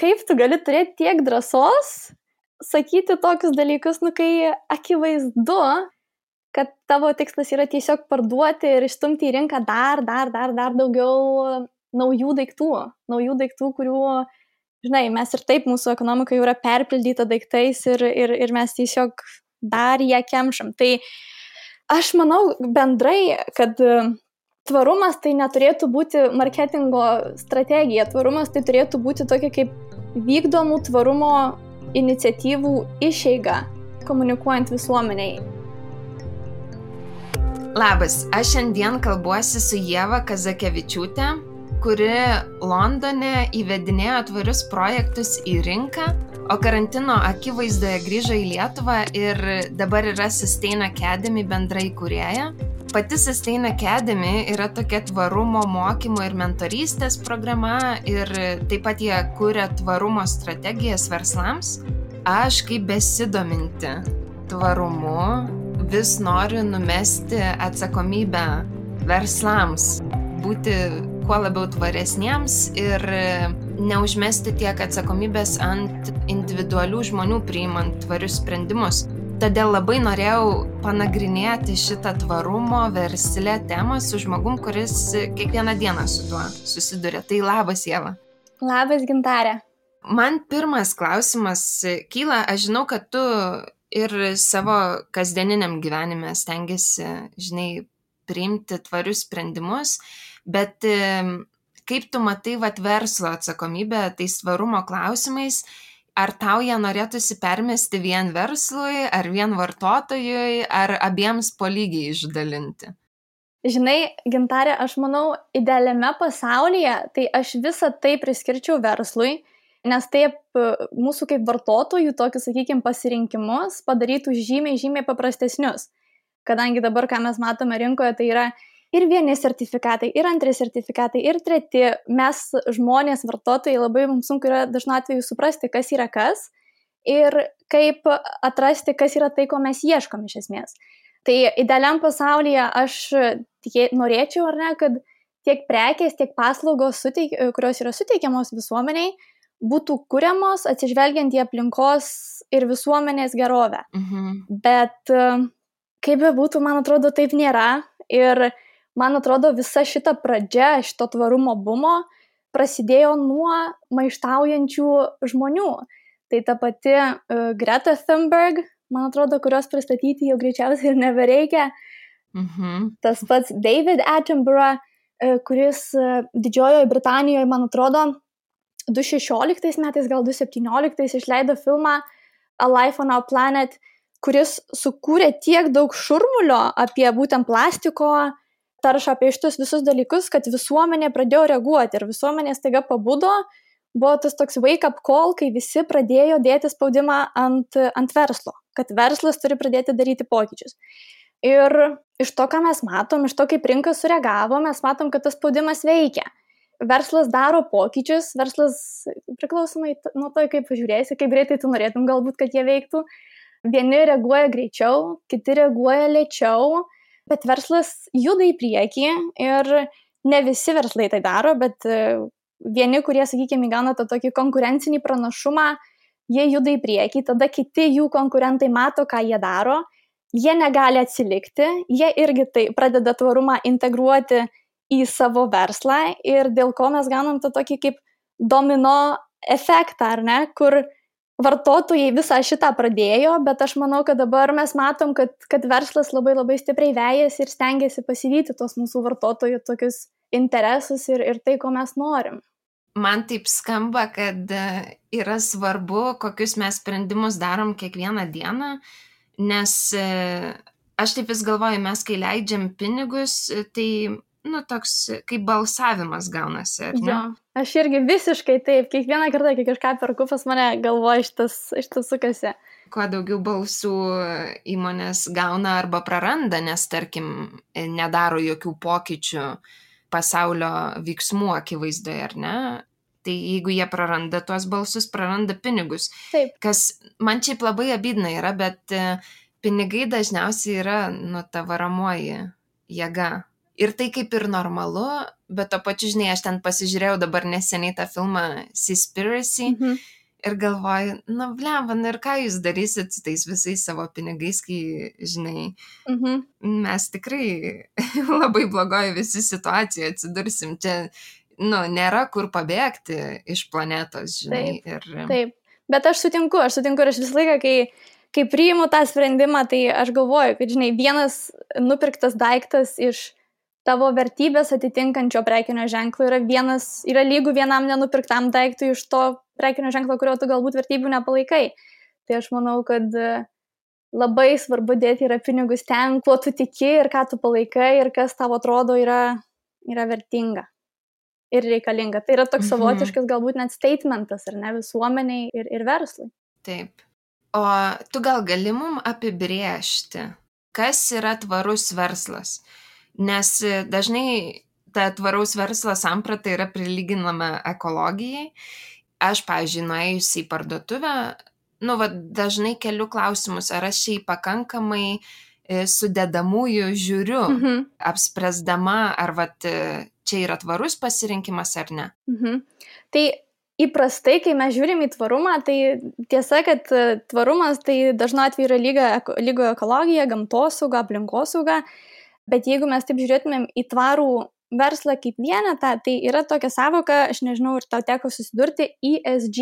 kaip tu gali turėti tiek drąsos sakyti tokius dalykus, kai akivaizdu, kad tavo tikslas yra tiesiog parduoti ir išstumti į rinką dar daugiau naujų daiktų, kurių, žinai, mes ir taip mūsų ekonomika jau yra perpildyta daiktais ir mes tiesiog dar ją kemšam. Tai aš manau bendrai, kad tvarumas tai neturėtų būti marketingo strategija, tvarumas tai turėtų būti tokia kaip vykdomų tvarumo iniciatyvų išeiga, komunikuojant visuomeniai. Labas, aš šiandien kalbuosi su Ieva Kazakevičiūtė, kuri Londone įvedinėjo tvarius projektus į rinką, o karantino akivaizdoje grįžo į Lietuvą ir dabar yra Sustain Academy bendra įkūrėja. Pati Sustain Academy yra tokia tvarumo mokymo ir mentorystės programa ir taip pat jie kuria tvarumo strategijas verslams. Aš kaip besidominti tvarumu vis noriu numesti atsakomybę verslams, būti kuo labiau tvaresniems ir neužmesti tiek atsakomybės ant individualių žmonių priimant tvarius sprendimus. Todėl labai norėjau panagrinėti šitą tvarumo versle temą su žmogum, kuris kiekvieną dieną su tuo susiduria. Tai labas, Ieva. Labas, Gintarė. Man pirmas klausimas kyla, aš žinau, kad tu ir savo kasdieniniam gyvenime stengiasi, žinai, priimti tvarius sprendimus, bet kaip tu matai verslo atsakomybę tais tvarumo klausimais? Ar tau ją norėtųsi permesti vien verslui, ar vien vartotojui, ar abiems po lygiai išdalinti? Žinai, Gintarė, aš manau, idealiame pasaulyje, tai aš visą tai priskirčiau verslui, nes taip mūsų kaip vartotojų tokius, sakykime, pasirinkimus padarytų žymiai paprastesnius. Kadangi dabar, ką mes matome rinkoje, tai yra ir vieni sertifikatai, ir antri sertifikatai, ir treti. Mes žmonės, vartotojai, labai mums sunku yra dažnu atveju suprasti, kas yra kas ir kaip atrasti, kas yra tai, ko mes ieškom iš esmės. Tai idealiam pasaulyje aš norėčiau, ar ne, kad tiek prekės, tiek paslaugos, kurios yra suteikiamos visuomeniai, būtų kuriamos atsižvelgiant į aplinkos ir visuomenės gerovę. Bet kaip bebūtų, man atrodo, taip nėra. Ir man atrodo, visa šita pradžia, šito tvarumo bumo prasidėjo nuo maištaujančių žmonių. Tai ta pati Greta Thunberg, man atrodo, kurios pristatyti jau greičiausiai ir nebereikia. Tas pats David Attenborough, kuris Didžiojoje Britanijoje, man atrodo, 2016 metais, gal 2017 išleido filmą A Life on Our Planet, kuris sukūrė tiek daug šurmulio apie būtent plastiko taršą, apie šitus visus dalykus, kad visuomenė pradėjo reaguoti ir visuomenė staiga pabudo. Buvo tas toks wake-up call, kai visi pradėjo dėti spaudimą ant verslo, kad verslas turi pradėti daryti pokyčius. Ir iš to, ką mes matom, iš to, kaip rinka sureagavo, mes matom, kad tas spaudimas veikia. Verslas daro pokyčius, verslas priklausomai nuo to, kaip žiūrėsi, kaip greitai tu norėtum galbūt, kad jie veiktų. Vieni reaguoja greičiau, kiti reaguoja lėčiau, bet verslas juda į priekį ir ne visi verslai tai daro, bet vieni, kurie, sakykime, įgauna tą tokį konkurencinį pranašumą, jie juda į priekį, tada kiti jų konkurentai mato, ką jie daro, jie negali atsilikti, jie irgi tai pradeda tvarumą integruoti į savo verslą ir dėl ko mes gaunam tą tokį kaip domino efektą, ar ne, kur vartotojai visą šitą pradėjo, bet aš manau, kad dabar mes matom, kad verslas labai stipriai vejasi ir stengiasi pasivyti tos mūsų vartotojų tokius interesus ir tai, ko mes norim. Man taip skamba, kad yra svarbu, kokius mes sprendimus darom kiekvieną dieną, nes aš taip vis galvoju, mes kai leidžiam pinigus, tai toks kaip balsavimas gaunasi, ar ne? Jo, aš irgi visiškai taip, kiekvieną kartą, kai kažką perku, pas mane galvoja šitas sukasi. Kuo daugiau balsų įmonės gauna arba praranda, nes, tarkim, nedaro jokių pokyčių pasaulio veiksmų akivaizdoje, ar ne? Tai jeigu jie praranda tuos balsus, praranda pinigus. Taip. Kas man šiaip labai abydna yra, bet pinigai dažniausiai yra ta varomoji jėga Ir tai kaip ir normalu, bet to pačiu, žinai, aš ten pasižiūrėjau dabar neseniai tą filmą Seaspiracy ir galvoju, blemba, ir ką jūs darysit su tais visais savo pinigais, kai, žinai, mes tikrai labai blogoje visi situacijoje atsidursim. Čia, nėra kur pabėgti iš planetos, žinai. Taip. Bet aš sutinku ir aš visą laiką, kai priimu tą sprendimą, tai aš galvoju, kad, žinai, vienas nupirktas daiktas iš tavo vertybės atitinkančio prekinio ženklo yra lygu vienam nenupirktam daiktui iš to prekinio ženklo, kurio tu galbūt vertybių nepalaikai. Tai aš manau, kad labai svarbu dėti yra pinigus ten, kuo tu tiki ir ką tu palaikai ir kas tau atrodo yra vertinga ir reikalinga. Tai yra toks savotiškas galbūt net statementas, ar ne, visuomeniai ir verslui. Taip. O tu gal gali mum apibrėžti, kas yra tvarus verslas? Nes dažnai ta tvaraus verslo samprata yra prilyginama ekologijai. Aš, pavyzdžiui, nuėjusi į parduotuvę, dažnai keliu klausimus, ar aš šiai pakankamai sudedamųjų žiūriu, apspręsdama, ar čia yra tvarus pasirinkimas ar ne. Tai įprastai, kai mes žiūrim į tvarumą, tai tiesa, kad tvarumas tai dažnu atveju yra lygo ekologija, gamtosauga, aplinkosauga, bet jeigu mes taip žiūrėtumėm į tvarų verslą kaip vienetą, tai yra tokia savoka, aš nežinau, ir tau teko susidurti, ESG.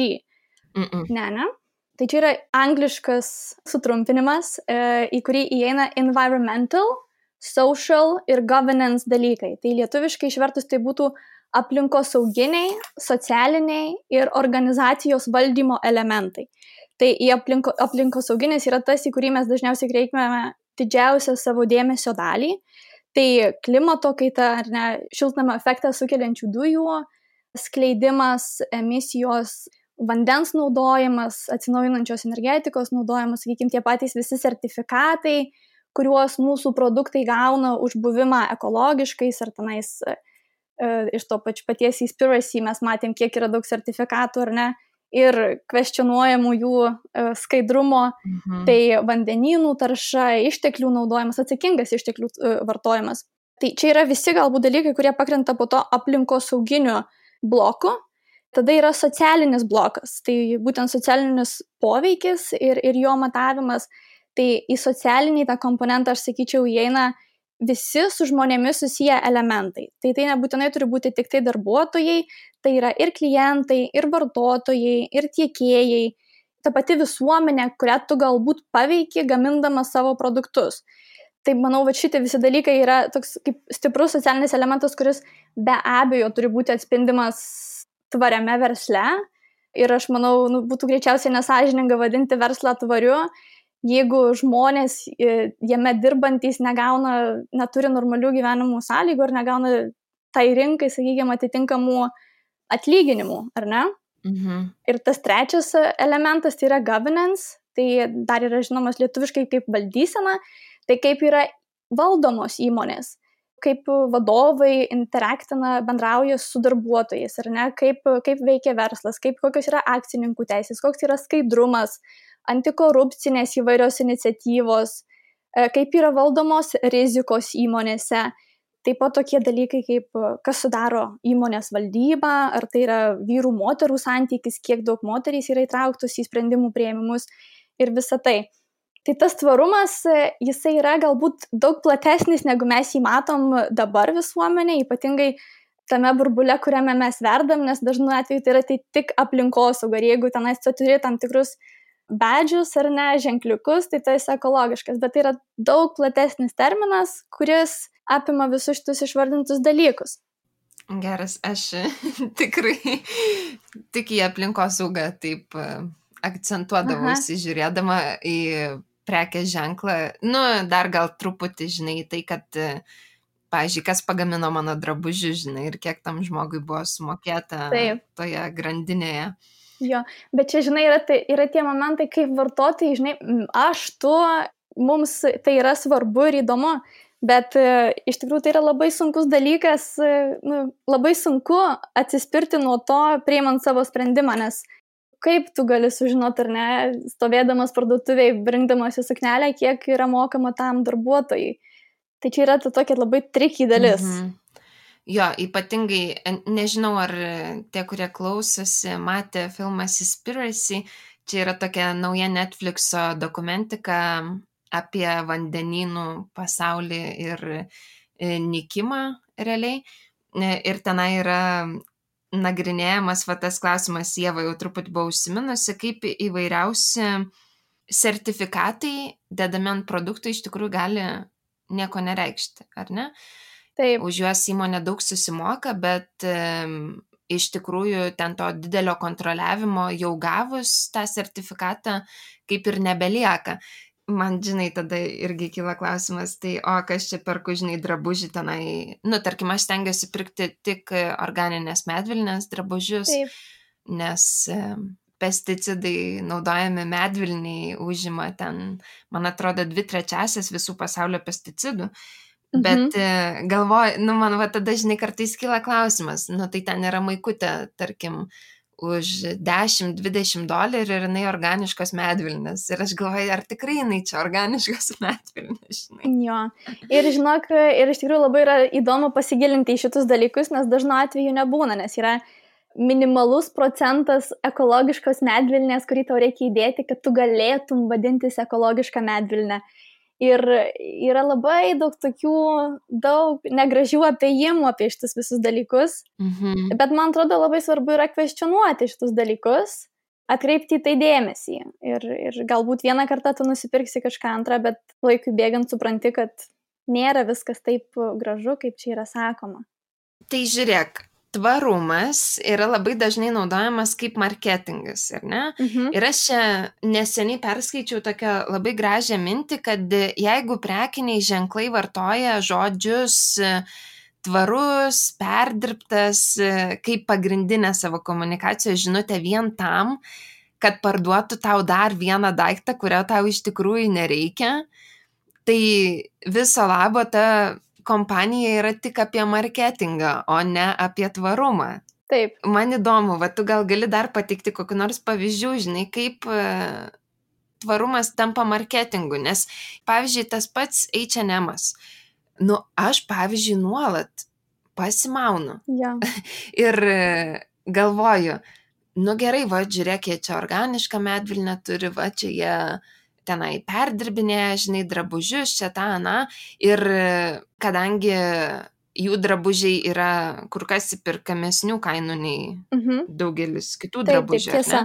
Ne? Tai čia yra angliškas sutrumpinimas, į kurį įeina environmental, social ir governance dalykai. Tai lietuviškai išvertus tai būtų aplinkosauginiai, socialiniai ir organizacijos valdymo elementai. Tai į aplinkosauginis yra tas, į kurį mes dažniausiai kreipėme didžiausią savo dėmesio dalį. Tai klimato kaita, ar ne, šiltnamio efektą sukeliančių dujų, skleidimas, emisijos, vandens naudojimas, atsinaujinančios energetikos naudojimas, sakykime, tie patys visi sertifikatai, kuriuos mūsų produktai gauna už buvimą ekologiškais, ar tenais iš to paties Seaspiracy mes matėm, kiek yra daug sertifikatų, ar ne, ir kvestionuojamų jų skaidrumo, tai vandenynų tarša, išteklių naudojimas, atsakingas išteklių vartojimas. Tai čia yra visi galbūt dalykai, kurie pakrenta po to aplinkosauginiu bloku. Tada yra socialinis blokas, tai būtent socialinis poveikis ir jo matavimas. Tai į socialinį tą komponentą, aš sakyčiau, įeina visi su žmonėmis susiję elementai. Tai nebūtinai turi būti tik tai darbuotojai, tai yra ir klientai, ir vartotojai, ir tiekėjai, ta pati visuomenė, kurią tu galbūt paveiki gamindamas savo produktus. Tai manau, kad šitie visi dalykai yra toks kaip stiprus socialinis elementas, kuris be abejo turi būti atspindimas tvariame versle. Ir aš manau, būtų greičiausiai nesąžininga vadinti verslą tvariu, jeigu žmonės jame dirbantys neturi normalių gyvenimų sąlygų ar negauna tai rinkai, sakykime, atitinkamų atlyginimų, ar ne? Ir tas trečias elementas tai yra governance, tai dar yra žinomas lietuviškai kaip valdysena, tai kaip yra valdomos įmonės, kaip vadovai bendrauja su darbuotojais, ar ne? Kaip veikia verslas, kokios yra akcininkų teisės, koks yra skaidrumas, antikorupcinės įvairios iniciatyvos, kaip yra valdomos rizikos įmonėse. Taip pat tokie dalykai, kaip kas sudaro įmonės valdybą, ar tai yra vyrų-moterų santykis, kiek daug moterys yra įtrauktos į sprendimų priėmimus ir visa tai. Tai tas tvarumas, jisai yra galbūt daug platesnis, negu mes jį matom dabar visuomenė, ypatingai tame burbule, kuriame mes verdam, nes dažnu atveju tai yra tik aplinkosauga. Ir jeigu tenais tu turi tam tikrus badžius ar ne, ženkliukus, tai tai esi ekologiškas. Bet tai yra daug platesnis terminas, kuris apima visus šitus išvardintus dalykus. Geras, aš tikrai tik į aplinkosaugą taip akcentuodavausi, žiūrėdama į prekės ženklą. Dar gal truputį, žinai, tai, kad, pavyzdžiui, kas pagamino mano drabužių, žinai, ir kiek tam žmogui buvo sumokėta toje grandinėje. Jo, bet čia, žinai, yra tie momentai, kaip vartotojai, žinai, mums tai yra svarbu ir įdomu, bet iš tikrųjų tai yra labai sunkus dalykas, labai sunku atsispirti nuo to, priimant savo sprendimą, nes kaip tu gali sužinoti, ar ne, stovėdamas parduotuvėje, rinkdamasi suknelę, kiek yra mokama tam darbuotojai. Tai čia yra ta tokia labai tricky dalis. Jo, ypatingai, nežinau, ar tie, kurie klausosi, matė filmą Seaspiracy, čia yra tokia nauja Netflixo dokumentika apie vandenynų pasaulį ir nykimą realiai. Ir tenai yra nagrinėjamas tas klausimas, Ieva jau truputį buvo užsiminusi, kaip įvairiausi sertifikatai dedami ant produktų iš tikrųjų gali nieko nereikšti, ar ne? Taip. Už juos įmonė daug susimoka, bet iš tikrųjų ten to didelio kontroliavimo jau gavus tą sertifikatą kaip ir nebelieka. Man, žinai, tada irgi kyla klausimas, tai kas čia perku, žinai, drabužį tenai, tarkim, aš stengiuosi pirkti tik organinės medvilnės drabužius, Taip. Nes pesticidai naudojami medvilniai užima ten, man atrodo, 2/3 visų pasaulio pesticidų. Bet galvoju, man tada, žinai, kartais kyla klausimas, tai ten yra maikutė, tarkim, už $10-20 ir jinai organiškos medvilnės. Ir aš galvoju, ar tikrai jinai čia organiškos medvilnės, žinai. Jo. Ir žinok, ir iš tikrųjų labai yra įdomu pasigilinti į šitus dalykus, nes dažnu atveju nebūna, nes yra minimalus procentas ekologiškos medvilnės, kurį tau reikia įdėti, kad tu galėtum vadintis ekologišką medvilnę. Ir yra labai daug negražių apėjimų apie šitus visus dalykus, bet man atrodo labai svarbu yra kvestionuoti šitus dalykus, atkreipti į tai dėmesį. Ir galbūt vieną kartą tu nusipirksi kažką antrą, bet laikui bėgant supranti, kad nėra viskas taip gražu, kaip čia yra sakoma. Tai žiūrėk, tvarumas yra labai dažnai naudojamas kaip marketingas, ar ne? Ir aš čia neseniai perskaičiau tokią labai gražią mintį, kad jeigu prekiniai ženklai vartoja žodžius tvarus, perdirbtas kaip pagrindinę savo komunikacijos žinutę vien tam, kad parduotų tau dar vieną daiktą, kurio tau iš tikrųjų nereikia, tai viso labo ta kompanija yra tik apie marketingą, o ne apie tvarumą. Taip. Man įdomu, tu gal gali dar pateikti kokių nors pavyzdžių, žinai, kaip tvarumas tampa marketingu, nes, pavyzdžiui, tas pats H&M'as. Aš, pavyzdžiui, nuolat pasimaunu. Ja. Ir galvoju, gerai, žiūrėk, jie čia organišką medvilnę turi, čia jie tenai perdirbinėja, žinai, drabužius, čia tą, ir kadangi jų drabužiai yra kur kas įperkamesnių kainų nei daugelis kitų drabužių,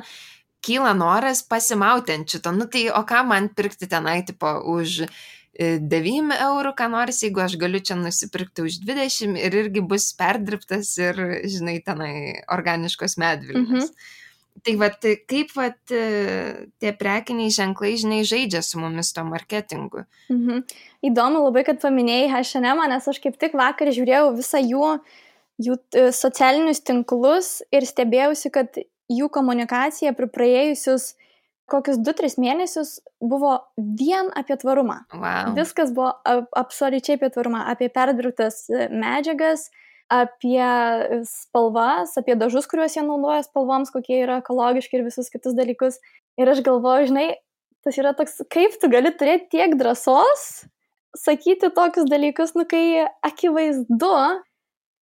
kyla noras pasimauti ant šito, tai o ką man pirkti tenai, tipo, už 9 eurų, ką nors, jeigu aš galiu čia nusipirkti už 20 ir irgi bus perdirbtas ir, žinai, tenai organiškos medvilnės. Tai kaip tie prekiniai ženklai, žinai, žaidžia su mumis to marketingu. Įdomu labai, kad paminėjai H&M, nes aš kaip tik vakar žiūrėjau visą jų socialinius tinklus ir stebėjausi, kad jų komunikacija per praėjusius kokius 2-3 mėnesius buvo vien apie tvarumą. Wow. Viskas buvo absoliučiai apie tvarumą, apie perdirbtas medžiagas, apie spalvas, apie dažus, kuriuos jie naudoja spalvoms, kokie yra ekologiški ir visus kitus dalykus. Ir aš galvoju, žinai, tas yra toks, kaip tu gali turėti tiek drąsos sakyti tokius dalykus, kai akivaizdu,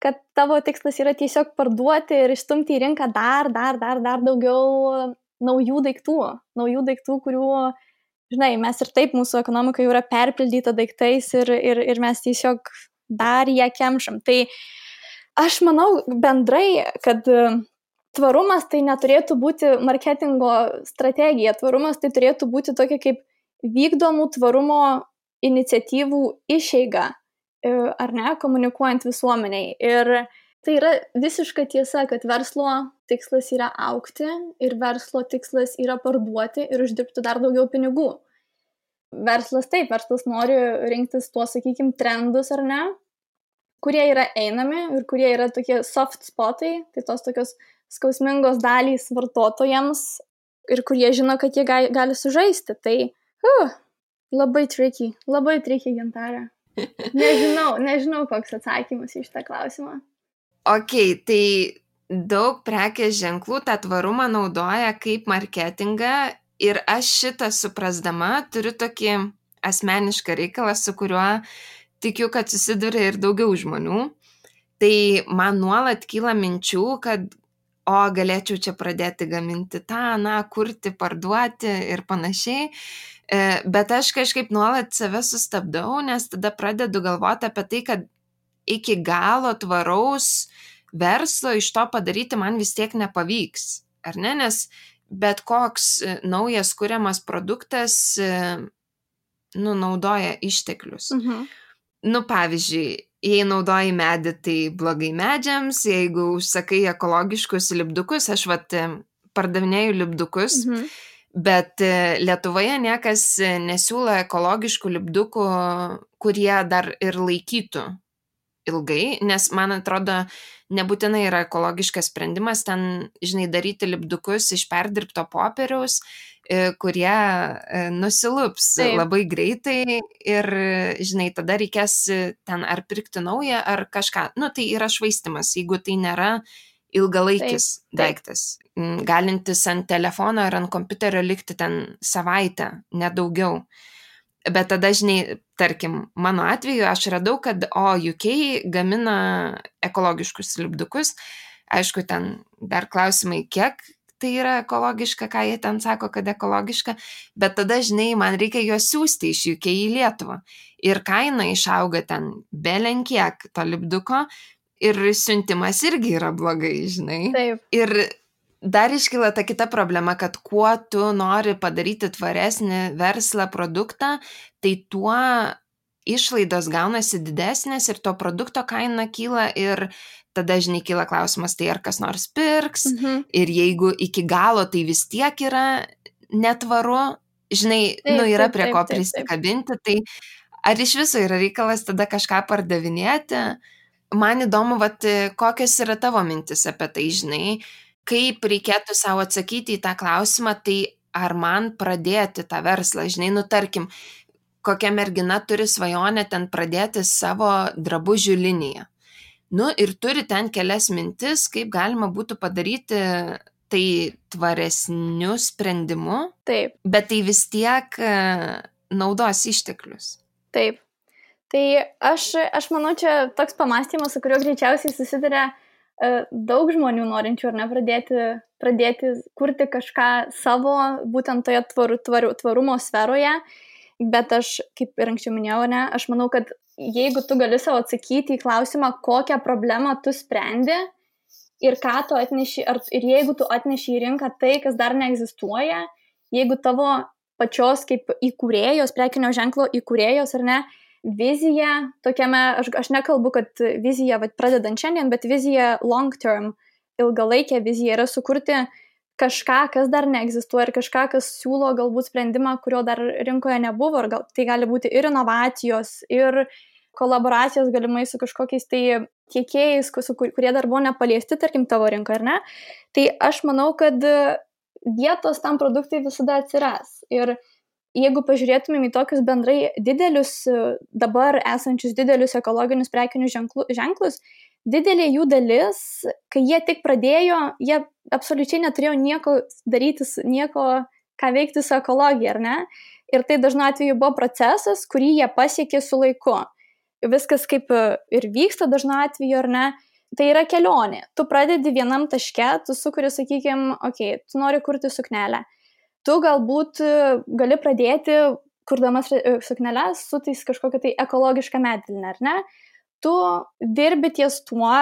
kad tavo tikslas yra tiesiog parduoti ir išstumti į rinką dar daugiau naujų daiktų, kurių, žinai, mes ir taip mūsų ekonomika jau yra perpildyta daiktais ir mes tiesiog dar ją kemšam. Tai aš manau bendrai, kad tvarumas tai neturėtų būti marketingo strategija, tvarumas tai turėtų būti tokia kaip vykdomų tvarumo iniciatyvų išeiga, ar ne, komunikuojant visuomeniai. Ir tai yra visiška tiesa, kad verslo tikslas yra augti ir verslo tikslas yra parduoti ir uždirbti dar daugiau pinigų. Verslas nori rinktis tuos, sakykime, trendus, ar ne, kurie yra einami ir kurie yra tokie soft spotai, tai tos tokios skausmingos dalys vartotojams ir kurie žino, kad jie gali sužaisti. Tai labai tricky, Gintarė. Nežinau, koks atsakymas į šitą klausimą. Ok, tai daug prekės ženklų tą tvarumą naudoja kaip marketingą ir aš šitą suprasdama turiu tokį asmenišką reikalą, su kuriuo tikiu, kad susiduria ir daugiau žmonių. Tai man nuolat kyla minčių, kad galėčiau čia pradėti gaminti tą, kurti, parduoti ir panašiai. Bet aš kažkaip nuolat save sustabdau, nes tada pradedu galvoti apie tai, kad iki galo tvaraus verslo iš to padaryti man vis tiek nepavyks, ar ne? Nes bet koks naujas kuriamas produktas naudoja išteklius. Pavyzdžiui, jei naudoji medį, tai blogai medžiams, jeigu užsakai ekologiškus lipdukus, aš pardavinėju lipdukus, bet Lietuvoje niekas nesiūlo ekologiškų lipdukų, kurie dar ir laikytų ilgai, nes man atrodo, nebūtinai yra ekologiškas sprendimas ten, daryti lipdukus iš perdirbto popieriaus, kurie nusilups labai greitai ir, tada reikės ten ar pirkti naują, ar kažką. Tai yra švaistymas, jeigu tai nėra ilgalaikis daiktas, galintis ant telefono ar ant kompiuterio likti ten savaitę, nedaugiau. Bet tada, tarkim, mano atveju aš radau, kad UK gamina ekologiškus lipdukus. Aišku, ten dar klausimai, kiek tai yra ekologiška, ką jie ten sako, kad ekologiška, bet tada, man reikia juos siūsti iš UK į Lietuvą. Ir kaina išauga ten belenkiek to lipduko ir siuntimas irgi yra blogai, Taip. Ir dar iškyla ta kita problema, kad kuo tu nori padaryti tvaresnį verslą, produktą, tai tuo išlaidos gaunasi didesnės ir to produkto kaina kyla ir tada, kyla klausimas, tai ar kas nors pirks ir jeigu iki galo tai vis tiek yra netvaru, yra prie ko prisikabinti, tai ar iš viso yra reikalas tada kažką pardavinėti? Man įdomu, kokios yra tavo mintis apie tai, kaip reikėtų savo atsakyti į tą klausimą, tai ar man pradėti tą verslą, tarkim, kokia mergina turi svajonę ten pradėti savo drabužių liniją. Ir turi ten kelias mintis, kaip galima būtų padaryti tai tvaresniu sprendimu, bet tai vis tiek naudos išteklius. Taip. Tai aš manau, čia toks pamąstymas, su kuriuo greičiausiai susiduria daug žmonių norinčių, ar ne, pradėti kurti kažką savo, būtent toje tvarumo sferoje, bet aš, kaip ir anksčiau minėjau, ne, aš manau, kad jeigu tu gali savo atsakyti į klausimą, kokią problemą tu sprendi ir ką tu atneši, ir jeigu tu atneši į rinką tai, kas dar neegzistuoja, jeigu tavo pačios kaip įkūrėjos, prekinio ženklo įkūrėjos, ar ne, vizija tokiame, aš nekalbu, kad vizija pradedant šiandien, bet vizija long term, ilgalaikė vizija yra sukurti kažką, kas dar neegzistuoja ir kažką, kas siūlo galbūt sprendimą, kurio dar rinkoje nebuvo, ir tai gali būti ir inovacijos, ir kolaboracijos galimai su kažkokiais tai tiekėjais, kurie dar buvo nepaliesti, tarkim, tavo rinkoje, ar ne? Tai aš manau, kad vietos tam produktui visada atsiras. Ir jeigu pažiūrėtumėm į tokius bendrai didelius, dabar esančius didelius ekologinius prekinius ženklus, didelė jų dalis, kai jie tik pradėjo, jie absoliučiai neturėjo nieko daryti, nieko, ką veikti su ekologija, ar ne? Ir tai dažnu atveju buvo procesas, kurį jie pasiekė su laiku. Viskas kaip ir vyksta dažnu atveju, ar ne? Tai yra kelionė. Tu pradedi vienam taške, tu sukuri, sakykime, tu nori kurti suknelę. Tu galbūt gali pradėti, kurdamas sukneles, su tais kažkokia tai ekologiška medvilne, ar ne? Tu dirbi ties tuo,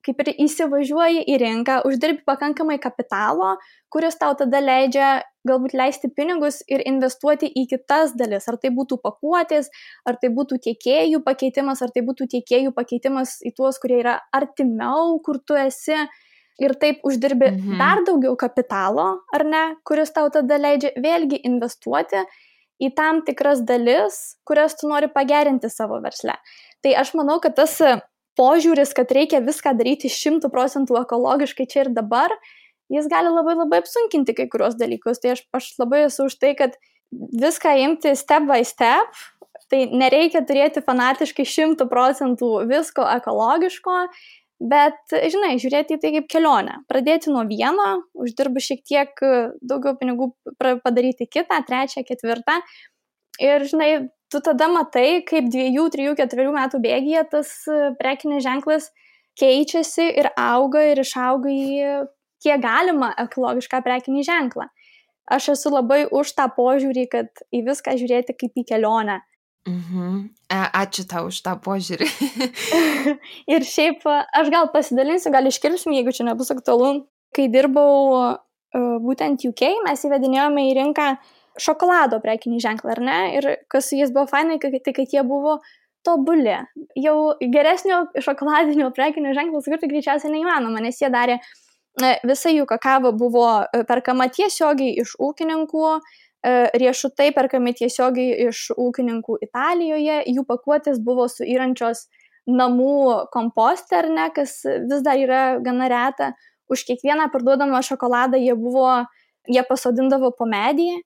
kaip ir įsivažiuoji į rinką, uždirbi pakankamai kapitalo, kuris tau tada leidžia galbūt leisti pinigus ir investuoti į kitas dalis. Ar tai būtų pakuotės, ar tai būtų tiekėjų pakeitimas, ar tai būtų tiekėjų pakeitimas į tuos, kurie yra artimiau, kur tu esi. Ir taip uždirbi dar daugiau kapitalo, ar ne, kuris tau tada leidžia vėlgi investuoti į tam tikras dalis, kurias tu nori pagerinti savo versle. Tai aš manau, kad tas požiūris, kad reikia viską daryti 100% ekologiškai čia ir dabar, jis gali labai labai apsunkinti kai kurios dalykus. Tai aš labai esu už tai, kad viską imti step by step, tai nereikia turėti fanatiškai 100% visko ekologiško, bet, žiūrėti į tai kaip kelionę. Pradėti nuo vieno, uždirbu šiek tiek daugiau pinigų, padaryti kitą, trečią, ketvirtą. Ir, tu tada matai, kaip 2, 3, 4 metų bėgyje tas prekinis ženklas keičiasi ir auga ir išauga į kiek galima ekologišką prekinį ženklą. Aš esu labai už tą požiūrį, kad į viską žiūrėti kaip į kelionę. Ačiū tau už tą požiūrį. Ir šiaip aš gal pasidalinsiu, gal iškirpsim, jeigu čia nebus aktualu. Kai dirbau būtent UK, mes įvedinėjome į rinką šokolado prekinį ženklą, ar ne? Ir kas su jais buvo fainai, tai kad jie buvo tobuli. Jau geresnio šokoladinio prekinio ženklo sukurti greičiausiai neįmanoma, nes jie darė, visa jų kakava buvo perkama tiesiogiai iš ūkininkų, riešutai perkami tiesiogiai iš ūkininkų Italijoje, jų pakuotės buvo suyrančios namų kompostą, ar ne, kas vis dar yra gana reta. Už kiekvieną parduodamą šokoladą jie pasodindavo po medį.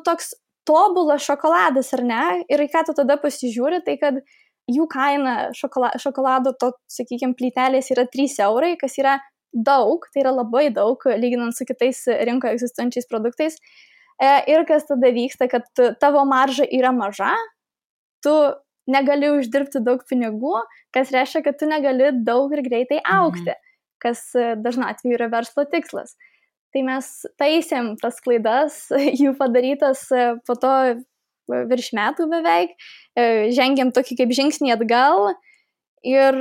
Toks tobulas šokoladas, ar ne? Ir ką tu tada pasižiūri, tai kad jų kaina šokolado, sakykime, plytelės yra 3 eurai, kas yra daug, tai yra labai daug, lyginant su kitais rinkoje egzistuojančiais produktais. Ir kas tada vyksta, kad tavo marža yra maža, tu negali uždirbti daug pinigų, kas reiškia, kad tu negali daug ir greitai augti, kas dažnu atveju yra verslo tikslas. Tai mes taisėm tas klaidas, jų padarytas po to virš metų beveik, žengėm tokį kaip žingsnį atgal ir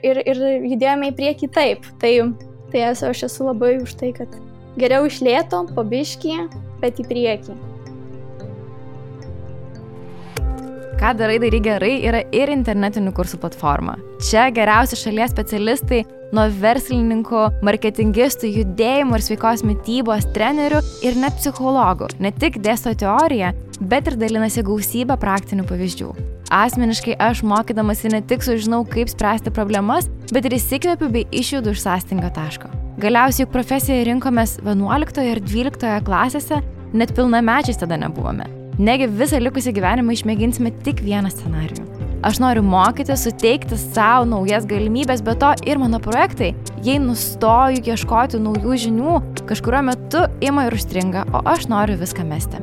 judėjome į priekį taip. Tai aš esu labai už tai, kad geriau iš lėto, po biškį, bet į priekį. Ką darai gerai yra ir internetinių kursų platforma. Čia geriausi šalies specialistai nuo verslininkų, marketingistų, judėjimo ir sveikos mitybos trenerių ir net psichologų ne tik dėsto teoriją, bet ir dalinasi gausybę praktinių pavyzdžių. Asmeniškai aš mokydamasi ne tik sužinau, kaip spręsti problemas, bet ir įsikvėpiu bei išjudu iš sąstingio taško. Galiausiai juk profesiją rinkomės 11 ir 12 klasėse, net pilnamečiais tada nebuvome. Negi visą likusį gyvenimą išmėginsime tik vieną scenarijų. Aš noriu mokyti, suteikti savo naujas galimybės, bet to ir mano projektai, jei nustoju ieškoti naujų žinių, kažkuriuo metu ima ir užstringa, o aš noriu viską mesti.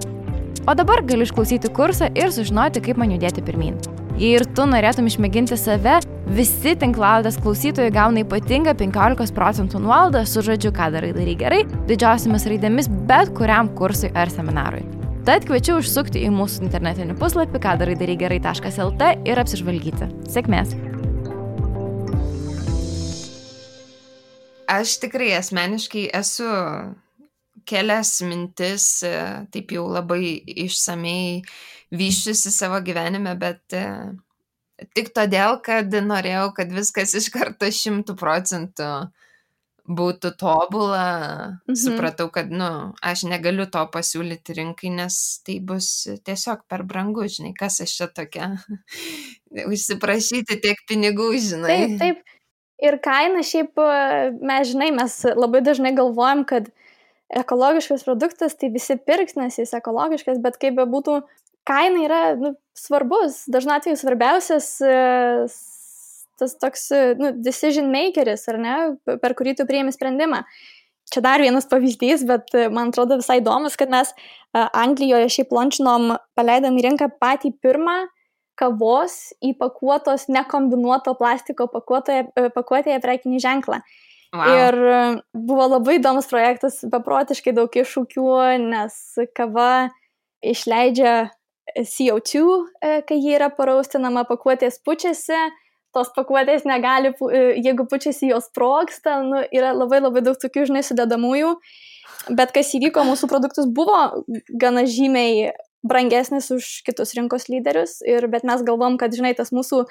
O dabar galiu išklausyti kursą ir sužinoti, kaip man judėti pirmyn. Jei ir tu norėtum išmėginti save, visi tinklalaidės klausytojai gauna ypatingą 15% nuolaidą su žodžiu ką darai gerai, didžiausiamis raidėmis bet kuriam kursui ar seminarui. Tad kviečiu užsukti į mūsų internetinį puslapį kadarai-gerai.lt ir apsižvalgyti. Sėkmės! Aš tikrai asmeniškai esu kelias mintis, taip jau labai išsamei vyščiusi savo gyvenime, bet tik todėl, kad norėjau, kad viskas iš karto 100% būtų tobula, supratau, kad, aš negaliu to pasiūlyti rinkai, nes tai bus tiesiog per brangu, žinai, kas aš čia tokia, užsiprašyti tiek pinigų, žinai. Taip. Ir kaina šiaip, mes labai dažnai galvojam, kad ekologiškas produktas, tai visi pirks, nes jis ekologiškas, bet kaip bebūtų, kaina yra svarbus, dažnu atveju svarbiausias tas toks, decision makeris, ar ne, per kurį tu priimi sprendimą. Čia dar vienas pavyzdys, bet man atrodo visai įdomus, kad mes Anglijoje šiaip launchinom, paleidom į rinką patį pirmą kavos įpakuotos nekombinuoto plastiko pakuotėje prekinį ženklą. Wow. Ir buvo labai įdomus projektas, beprotiškai daug iššūkių, nes kava išleidžia CO2, kai ji yra paraustinama, pakuotės pučiasi, tos pakuotės negali, jeigu pučiasi jos sprogsta, yra labai labai daug tokių, sudedamųjų, bet kas įvyko, mūsų produktus buvo gana žymiai brangesnis už kitus rinkos lyderius, bet mes galvom, kad, tas mūsų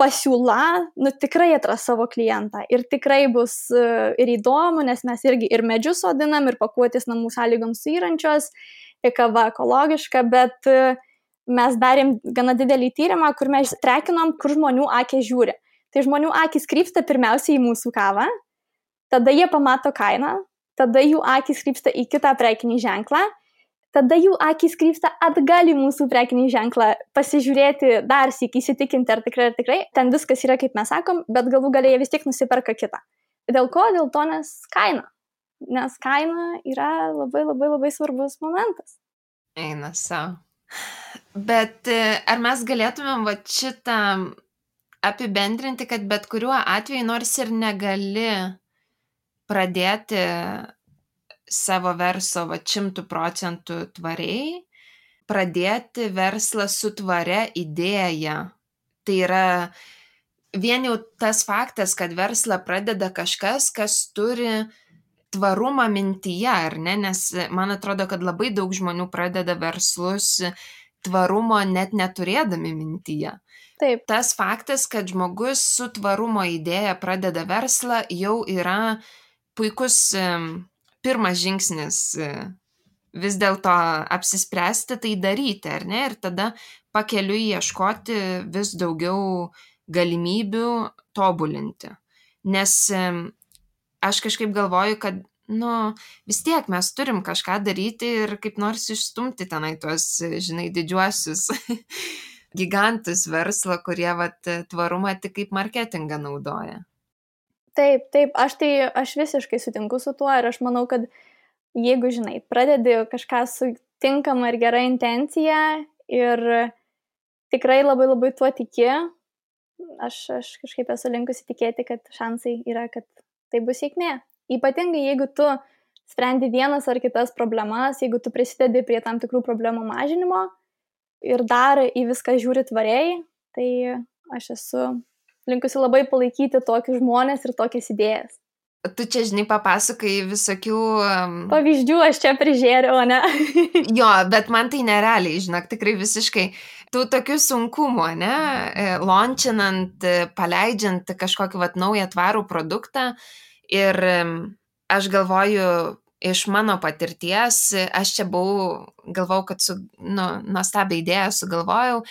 pasiūla, tikrai atras savo klientą ir tikrai bus ir įdomu, nes mes irgi ir medžius sodinam, ir pakuotės namų sąlygoms suyrančios, ir kava ekologiška, bet mes darėm gana didelį tyrimą, kur mes trekinom, kur žmonių akys žiūri. Tai žmonių akys krypsta pirmiausiai į mūsų kavą, tada jie pamato kainą, tada jų akys krypsta į kitą prekinį ženklą, tada jų akys krypsta atgal į mūsų prekinį ženklą, pasižiūrėti dar sykį, įsitikinti, ar tikrai, ten viskas yra, kaip mes sakom, bet galų gale jie vis tiek nusiperka kitą. Dėl ko? Dėl to, nes kaina yra labai labai labai svarbus momentas. Eina savo. Bet ar mes galėtumėm va šitą apibendrinti, kad bet kuriuo atveju nors ir negali pradėti savo verslo 100% tvariai, pradėti verslą su tvaria idėja. Tai yra vien jau tas faktas, kad verslą pradeda kažkas, kas turi tvarumą mintyje, ar ne? Nes man atrodo, kad labai daug žmonių pradeda verslus tvarumo net neturėdami mintyje. Taip. Tas faktas, kad žmogus su tvarumo idėja pradeda verslą, jau yra puikus pirmas žingsnis vis dėlto apsispręsti tai daryti, ar ne? Ir tada pakeliui ieškoti vis daugiau galimybių tobulinti. Nes aš kažkaip galvoju, kad vis tiek mes turim kažką daryti ir kaip nors išstumti tenai tuos, didžiuosius gigantus verslo, kurie tvarumą tik kaip marketingą naudoja. Taip, aš visiškai sutinku su tuo ir aš manau, kad jeigu, pradedi kažką su tinkama ir gera intencija ir tikrai labai labai tuo tiki, aš kažkaip esu linkusi tikėti, kad šansai yra, kad tai bus sėkmė. Ypatingai, jeigu tu sprendi vienas ar kitas problemas, jeigu tu prisidedi prie tam tikrų problemų mažinimo ir dar į viską žiūri tvariai, tai aš esu linkusi labai palaikyti tokius žmonės ir tokias idėjas. Tu čia, papasakai visokių pavyzdžių, aš čia prižiūrėjau, ne? Jo, bet man tai nerealiai, tikrai visiškai. Tų tokių sunkumų, ne? Launchinant, paleidžiant kažkokį naują tvarų produktą. Ir aš galvoju, iš mano patirties, aš čia galvojau, kad nuostabią idėją sugalvojau.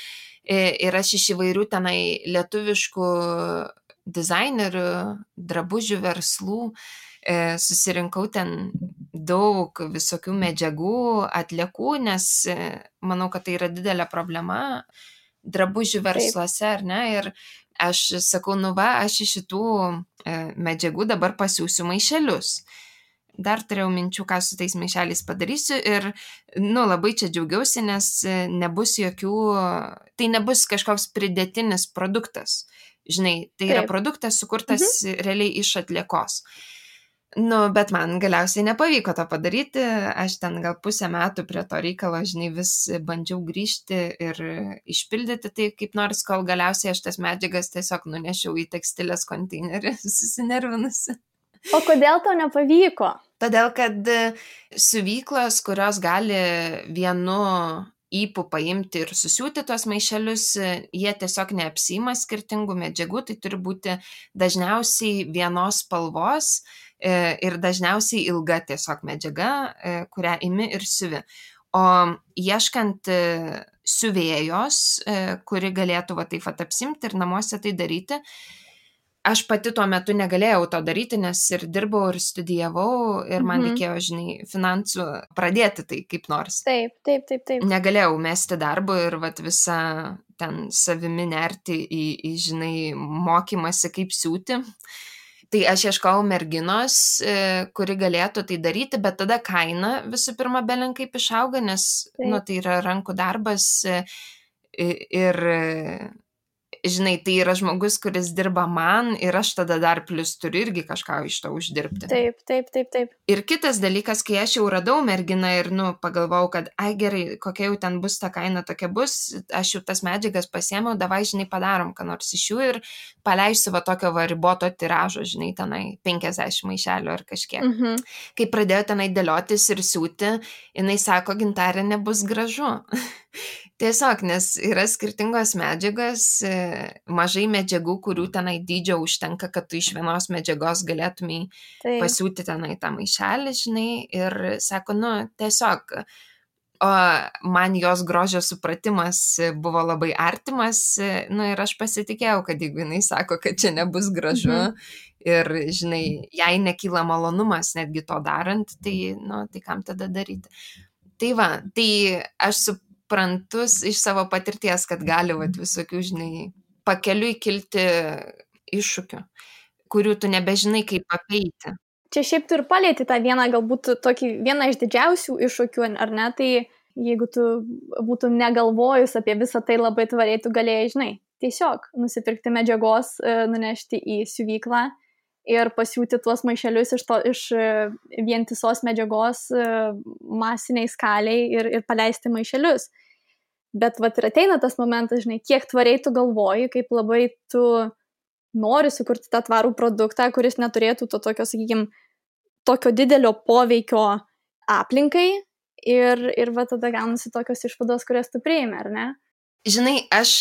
Ir aš iš įvairių tenai lietuviškų dizainerių, drabužių verslų susirinkau ten daug visokių medžiagų, atliekų, nes manau, kad tai yra didelė problema drabužių versluose, ar ne? Ir aš sakau, aš iš šitų medžiagų dabar pasiūsiu maišelius. Dar turėjau minčių, ką su tais maišeliais padarysiu ir, labai čia džiaugiausi, nes tai nebus kažkoks pridėtinis produktas. Tai yra produktas sukurtas realiai iš atliekos. Bet man galiausiai nepavyko to padaryti, aš ten gal pusę metų prie to reikalo, vis bandžiau grįžti ir išpildyti tai kaip nors, kol galiausiai aš tas medžiagas tiesiog nunešiau į tekstilės konteinerį, susinervinusi. O kodėl tau nepavyko? Todėl, kad siuvyklos, kurios gali vienu ypu paimti ir susiūti tos maišelius, jie tiesiog neapsiima skirtingų medžiagų, tai turi būti dažniausiai vienos spalvos ir dažniausiai ilga tiesiog medžiaga, kurią imi ir siuvi. O ieškant siuvėjos, kuri galėtų taip apsimti ir namuose tai daryti, aš pati tuo metu negalėjau to daryti, nes ir dirbau, ir studijavau, ir man reikėjo, finansų pradėti tai kaip nors. Taip. Negalėjau mesti darbo ir visą ten savimi nerti į mokymasi kaip siūti. Tai aš ieškojau merginos, kuri galėtų tai daryti, bet tada kaina visų pirma belenkaip išauga, nes tai yra rankų darbas ir tai yra žmogus, kuris dirba man ir aš tada dar plus turiu irgi kažką iš to uždirbti. Taip. Ir kitas dalykas, kai aš jau radau merginą ir, pagalvojau, kad, gerai, kokia jau ten bus ta kaina, tokia bus, aš jau tas medžiagas pasiėmiau, davai, padarom, ką nors iš jų ir paleisiu tokio riboto tiražo, tenai 50 maišelių ar kažkiek. Kai pradėjo tenai dėliotis ir siūti, jinai sako, Gintarė, nebus gražu. Tiesiog, nes yra skirtingos medžiagos, mažai medžiagų, kurių tenai dydžio užtenka, kad tu iš vienos medžiagos galėtumai pasiūti tenai tą maišelį, ir sako, tiesiog, o man jos grožio supratimas buvo labai artimas, ir aš pasitikėjau, kad jeigu jinai sako, kad čia nebus gražu ir, jai nekyla malonumas netgi to darant, tai, tai kam tada daryti. Tai tai aš suprantus iš savo patirties, kad gali visokių, pakeliui kilti iššūkių, kurių tu nebežinai, kaip apeiti. Čia šiaip tu ir palieti tą vieną, galbūt vieną iš didžiausių iššūkių, ar ne? Tai jeigu tu būtum negalvojus apie visą tai labai tvariai, tu galėjai, žinai, tiesiog nusipirkti medžiagos, nunešti į siuvyklą ir pasiūti tuos maišelius iš vientisos medžiagos masiniai skaliai ir paleisti maišelius. Bet vat ir ateina tas momentas, žinai, kiek tvariai tu galvoji, kaip labai tu nori sukurti tą tvarų produktą, kuris neturėtų to tokio, sakykime, tokio didelio poveikio aplinkai ir va tada gaunasi tokios išvados, kurias tu priimi, ar ne? Žinai, aš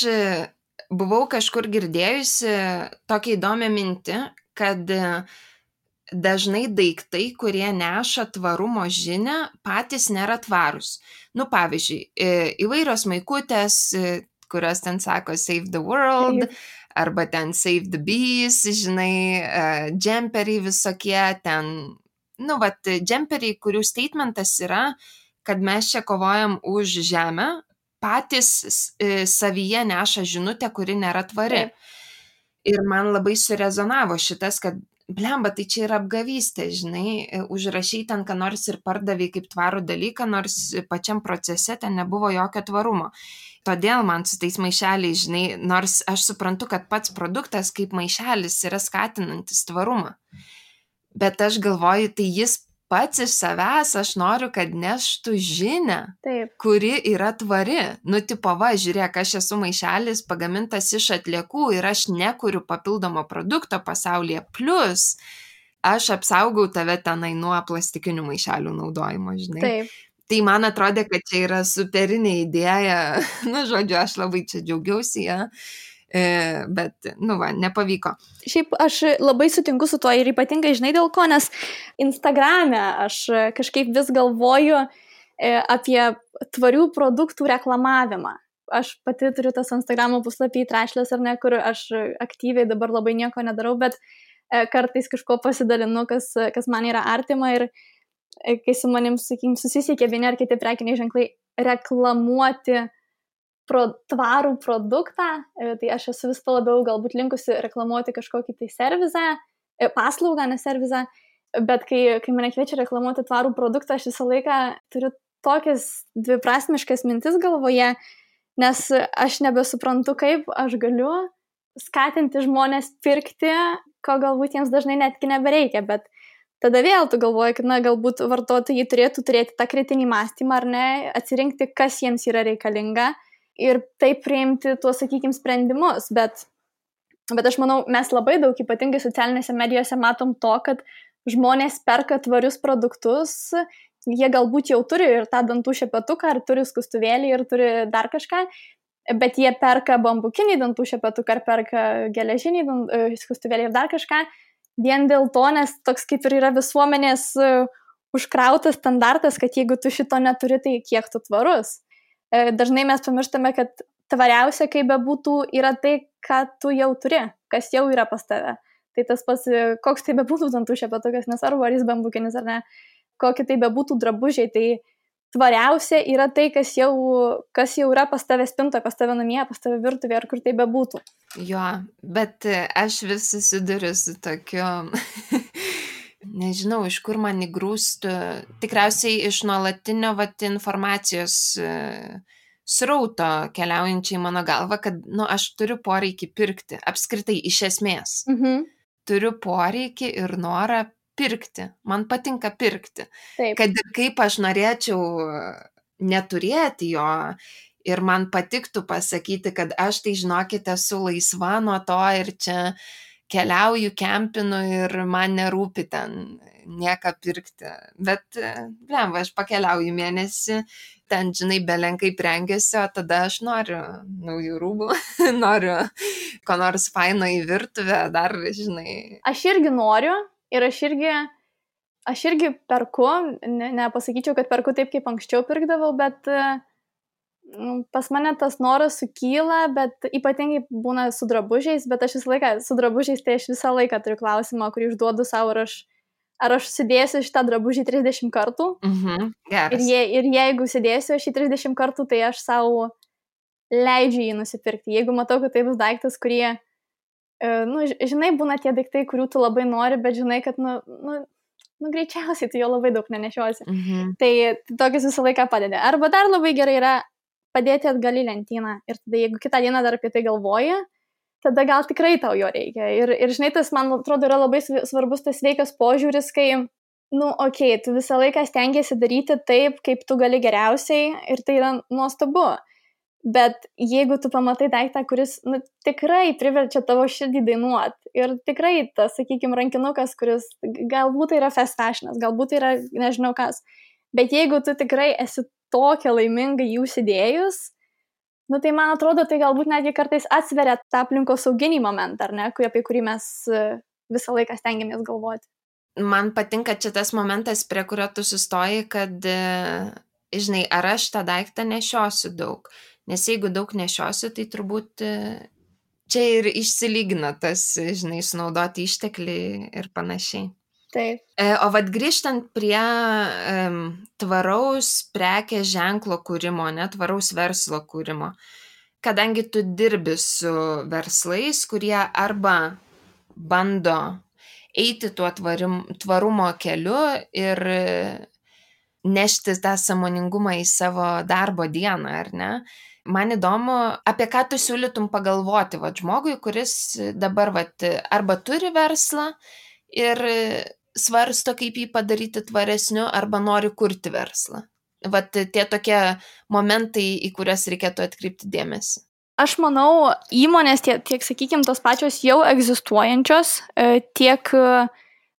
buvau kažkur girdėjusi tokią įdomią mintį, kad dažnai daiktai, kurie neša tvarumo žinią, patys nėra tvarūs. Nu, pavyzdžiui, įvairios maikutės, kurios ten sako Save the World, arba ten Save the Bees, žinai, džemperiai visokie, ten, nu, vat, džemperiai, kurių statementas yra, kad mes čia kovojam už žemę, patys savyje neša žinutę, kuri nėra tvari. Ir man labai surezonavo šitas, kad blemba, tai čia yra apgavystė, žinai, užrašai ten, ką nors ir pardavai kaip tvarų dalyką, nors pačiam procese ten nebuvo jokio tvarumo. Todėl man su tais maišeliais, žinai, nors aš suprantu, kad pats produktas kaip maišelis yra skatinantis tvarumą. Bet aš galvoju, tai jis pats iš savęs, aš noriu, kad neštų žinią, kuri yra tvari. Nu, tipo, va, žiūrėk, aš esu maišelis pagamintas iš atliekų ir aš nekuriu papildomo produkto pasaulyje. Plus, aš apsaugau tave tenai nuo plastikinių maišelių naudojimo, žinai. Taip. Tai man atrodė, kad čia yra superinė idėja. Nu, žodžiu, aš labai čia džiaugiausi, ja. Bet, nu va, nepavyko. Šiaip aš labai sutinku su tuo ir ypatingai, žinai, dėl ko, nes Instagrame aš kažkaip vis galvoju apie tvarių produktų reklamavimą. Aš pati turiu tas Instagramo puslapį Trashless ar ne, kur aš aktyviai dabar labai nieko nedarau, bet kartais kažko pasidalinu, kas man yra artima ir kai su manim, sakykim, susisiekia vieni ar kiti prekiniai ženklai reklamuoti tvarų produktą, tai aš esu vis labiau galbūt linkusi reklamuoti kažkokį tai servizą, paslaugą, ne servizą, bet kai mane kviečia reklamuoti tvarų produktą, aš visą laiką turiu tokias dviprasmiškas mintis galvoje, nes aš nebesuprantu, kaip aš galiu skatinti žmonės pirkti, ko galbūt jiems dažnai netgi nebereikia, bet tada vėl tu galvoji, kad, na, galbūt vartotojai turėtų turėti tą kritinį mąstymą ar ne, atsirinkti, kas jiems yra reikalinga, ir taip priimti tuos, sakykime, sprendimus, bet aš manau, mes labai daug, ypatingai socialinėse medijose, matom to, kad žmonės perka tvarius produktus, jie galbūt jau turi ir tą dantų šepetuką, ar turi skustuvėlį, ir turi dar kažką, bet jie perka bambukinį dantų šepetuką, ar perka geležinį skustuvėlį ir dar kažką, vien dėl to, nes toks kaip ir yra visuomenės užkrautas standartas, kad jeigu tu šito neturi, tai kiek tu tvarus. Dažnai mes pamirštame, kad tvariausia, kaip bebūtų, yra tai, ką tu jau turi, kas jau yra pas tave. Tai tas pats, koks tai bebūtų dantų šepetukas, nesvarbu, ar jis bambukinis ar ne, kokie tai bebūtų drabužiai, tai tvariausia yra tai, kas jau yra pas tave spintoje, pas tave namie, pas tave virtuvėje, ar kur tai bebūtų. Jo, bet aš vis susiduriu su tokiu... Nežinau, iš kur man įgrūstų, tikriausiai iš nuolatinio informacijos srauto keliaujančiai mano galva, kad, nu, aš turiu poreikį pirkti, apskritai iš esmės. Turiu poreikį ir norą pirkti, man patinka pirkti. Taip. Kad ir kaip aš norėčiau neturėti jo ir man patiktų pasakyti, kad aš tai, žinokite, esu laisva nuo to ir čia keliauju, kempinu ir man nerūpi ten nieką pirkti. Bet, blemba, aš pakeliauju mėnesį, ten, žinai, belenkai prengiasi, o tada aš noriu naujų rūbų, noriu ko nors faino į virtuvę, dar, žinai. Aš irgi noriu ir aš irgi perku, nepasakyčiau, kad perku taip, kaip anksčiau pirkdavau, bet pas mane tas noras sukyla, bet ypatingai būna su drabužiais, bet aš visą laiką su drabužiais, tai aš visą laiką turiu klausimą, kurį užduodu savo, ar aš sudėsiu šitą drabužį 30 kartų. Geras. Ir jeigu sudėsiu šį 30 kartų, tai aš savo leidžiu jį nusipirkti. Jeigu matau, kad tai bus daiktas, kurie, žinai, būna tie daiktai, kurių tu labai nori, bet žinai, kad, greičiausiai tu jo labai daug nenešiosi. Mhm. Tai tokius visą laiką padeda. Arba dar labai gerai yra padėti atgal į lentyną. Ir tada, jeigu kitą dieną dar apie tai galvoji, tada gal tikrai tau jo reikia. Ir žinai, tas, man atrodo, yra labai svarbus tas sveikas požiūris, kai, tu visą laiką stengiasi daryti taip, kaip tu gali geriausiai ir tai yra nuostabu. Bet jeigu tu pamatai daiktą, kuris tikrai priverčia tavo širdį dainuoti ir tikrai tas, sakykime, rankinukas, kuris galbūt yra fast fashionas, galbūt yra nežinau kas, bet jeigu tu tikrai esi tokia laiminga jų užsidėjus, tai man atrodo, tai galbūt netgi kartais atsveria tą aplinkosauginį momentą, ar ne, apie kurį mes visą laiką stengiamės galvoti. Man patinka čia tas momentas, prie kurio tu sustoji, kad, žinai, ar aš tą daiktą nešiosiu daug. Nes jeigu daug nešiosiu, tai turbūt čia ir išsilygina tas, žinai, sunaudoti išteklį ir panašiai. Taip. O vat grįžtant prie tvaraus prekės ženklo kūrimo, tvaraus verslo kūrimo, kadangi tu dirbi su verslais, kurie arba bando eiti tuo tvarumo keliu ir nešti tą sąmoningumą į savo darbo dieną, ar ne? Man įdomu, apie ką tu siūlytum pagalvoti žmogui, kuris dabar arba turi verslą ir svarsto, kaip jį padaryti tvaresniu, arba nori kurti verslą. Tie tokie momentai, į kurias reikėtų atkreipti dėmesį. Aš manau, įmonės tiek sakykime, tos pačios jau egzistuojančios, tiek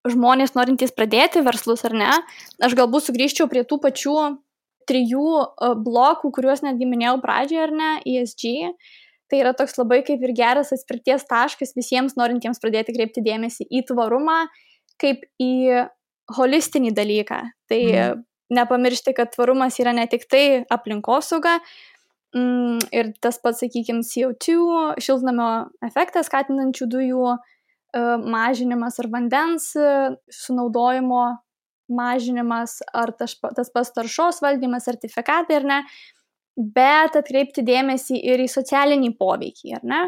žmonės norintys pradėti verslus ar ne, aš galbūt sugrįžčiau prie tų pačių 3 blokų, kuriuos netgi minėjau pradžioje, ar ne, ESG. Tai yra toks labai kaip ir geras atspirties taškas visiems norintiems pradėti kreipti dėmesį į tvarumą, kaip į holistinį dalyką. Tai nepamiršti, kad tvarumas yra ne tik tai aplinkosauga, ir tas pats, sakykime, CO2, šiltnamio efektą skatinančių dujų mažinimas ar vandens sunaudojimo mažinimas, ar tas pats taršos valdymas, sertifikatai, ar ne, bet atkreipti dėmesį ir į socialinį poveikį, ar ne,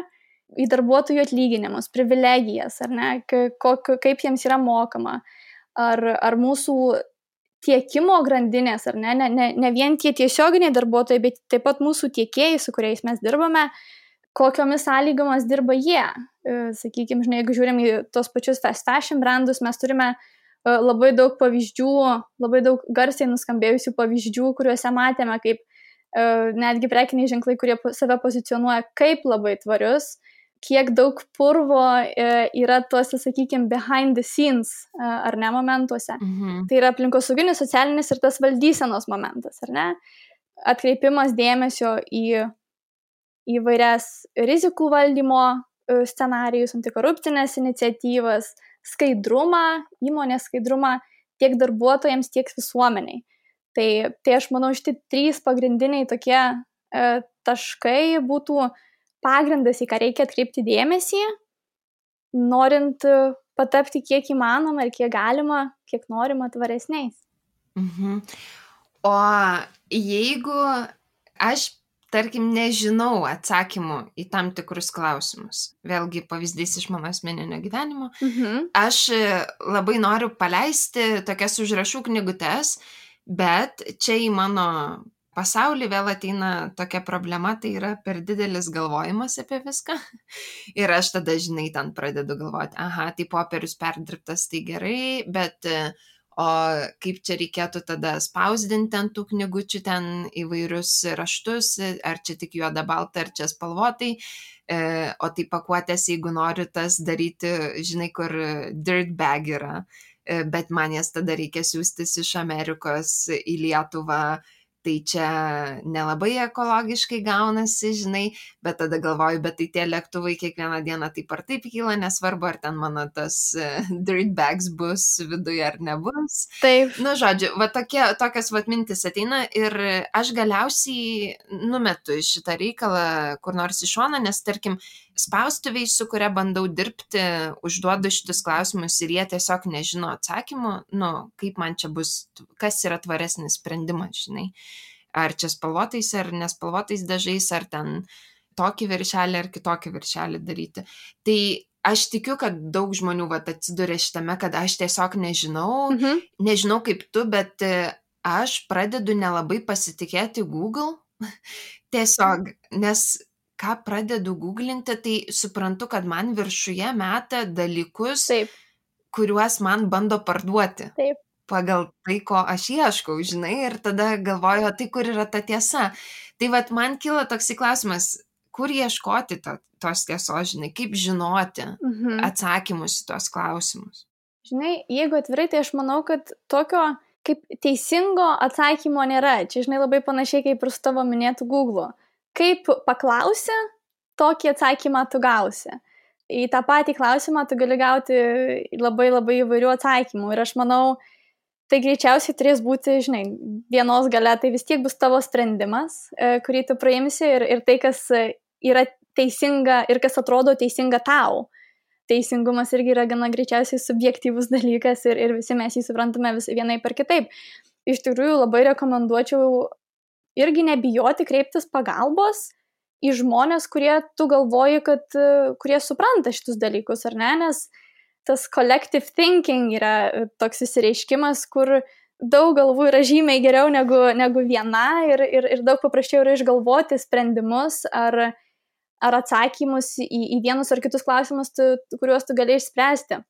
į darbuotojų atlyginimus, privilegijas, ar ne, kaip jiems yra mokama, ar mūsų tiekimo grandinės, ar ne vien tie tiesioginiai darbuotojai, bet taip pat mūsų tiekėjai, su kuriais mes dirbame, kokiomis sąlygomis dirba jie. Sakykime, žinai, jeigu žiūrim į tos pačius fast fashion brandus, mes turime labai daug pavyzdžių, labai daug garsiai nuskambėjusių pavyzdžių, kuriuose matėme, kaip netgi prekiniai ženklai, kurie save pozicionuoja kaip labai tvarius, kiek daug purvo yra tuose, sakykime, behind the scenes ar ne momentuose. Tai yra aplinkosauginis, socialinis ir tas valdysenos momentas, ar ne? Atkreipimas dėmesio į įvairias rizikų valdymo scenarijus, antikorupcinės iniciatyvas, skaidrumą, įmonės skaidrumą tiek darbuotojams, tiek visuomeniai. Tai aš manau, šitie 3 pagrindiniai tokie taškai būtų pagrindas, į ką reikia atkreipti dėmesį, norint patapti kiek įmanoma ir kiek galima, kiek norima tvaresniais. O jeigu aš, tarkim, nežinau atsakymų į tam tikrus klausimus, vėlgi pavyzdys iš mano asmeninio gyvenimo, aš labai noriu paleisti tokias užrašų knygutes, bet čia į mano pasaulį vėl ateina tokia problema, tai yra per didelis galvojimas apie viską. Ir aš tada, žinai, ten pradedu galvoti, tai popierius perdirbtas, tai gerai, bet o kaip čia reikėtų tada spausdinti ant tų knygučių ten įvairius raštus, ar čia tik juoda balta, ar čia spalvotai, o tai pakuotės, jeigu noriu tas daryti, žinai, kur dirt bag yra, bet man jas tada reikia siųstis iš Amerikos į Lietuvą, tai čia nelabai ekologiškai gaunasi, žinai, bet tada galvoju, bet tai tie lėktuvai kiekvieną dieną taip ar taip kyla, nesvarbu, ar ten mano tas dirt bags bus viduje ar nebus. Taip. Žodžiu, tokias mintis ateina ir aš galiausiai numetu šitą reikalą kur nors į šoną, nes tarkim, spaustuviai, su kuria bandau dirbti, užduodu šitus klausimus ir jie tiesiog nežino atsakymų, kaip man čia bus, kas yra tvaresnis sprendimas, žinai. Ar čia spalvotais, ar nespalvotais dažais, ar ten tokį viršelį, ar kitokį viršelį daryti. Tai aš tikiu, kad daug žmonių atsiduria šitame, kad aš tiesiog nežinau kaip tu, bet aš pradedu nelabai pasitikėti Google. Tiesiog, nes ką pradedu googlinti, tai suprantu, kad man viršuje meta dalykus, Taip. kuriuos man bando parduoti. Taip. Pagal tai, ko aš ieškau, žinai, ir tada galvoju, tai kur yra ta tiesa. Tai man kyla toks klausimas, kur ieškoti tos tiesos, žinai, kaip žinoti atsakymus į tos klausimus. Žinai, jeigu atvirai, tai aš manau, kad tokio kaip teisingo atsakymo nėra. Čia, žinai, labai panašiai kaip ir su tavo minėtų Google. Kaip paklausi, tokį atsakymą tu gausi. Į tą patį klausimą tu gali gauti labai labai įvairių atsakymų. Ir aš manau, tai greičiausiai turės būti, žinai, dienos gale, tai vis tiek bus tavo sprendimas, kurį tu praimsi ir tai, kas yra teisinga ir kas atrodo teisinga tau. Teisingumas irgi yra gana greičiausiai subjektyvus dalykas ir visi mes jį suprantame vienai per kitaip. Iš tikrųjų labai rekomenduočiau irgi nebijoti kreiptis pagalbos į žmonės, kurie tu galvoji, kad kurie supranta šitus dalykus, ar ne, nes tas collective thinking yra toks įsireiškimas, kur daug galvų yra žymiai geriau negu viena ir daug paprasčiau yra išgalvoti sprendimus ar atsakymus į vienus ar kitus klausimus, kuriuos tu gali išspręsti.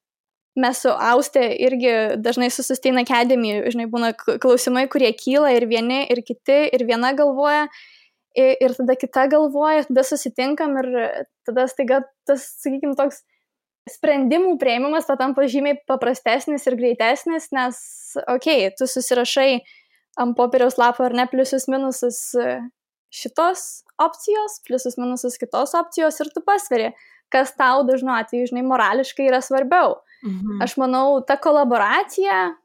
Mes su Auste irgi dažnai su Sustain Academy, žinai, būna klausimai, kurie kyla ir vieni, ir kiti, ir viena galvoja, ir tada kita galvoja, tada susitinkam ir tada staiga tas, sakykime, toks sprendimų priėmimas patampa žymiai paprastesnis ir greitesnis, nes, tu susirašai ant popieriaus lapo ar ne pliusus minusus šitos opcijos, pliusus minusus kitos opcijos ir tu pasveri, kas tau dažnu atveju, žinai, morališkai yra svarbiau. Aš manau, ta kolaboracija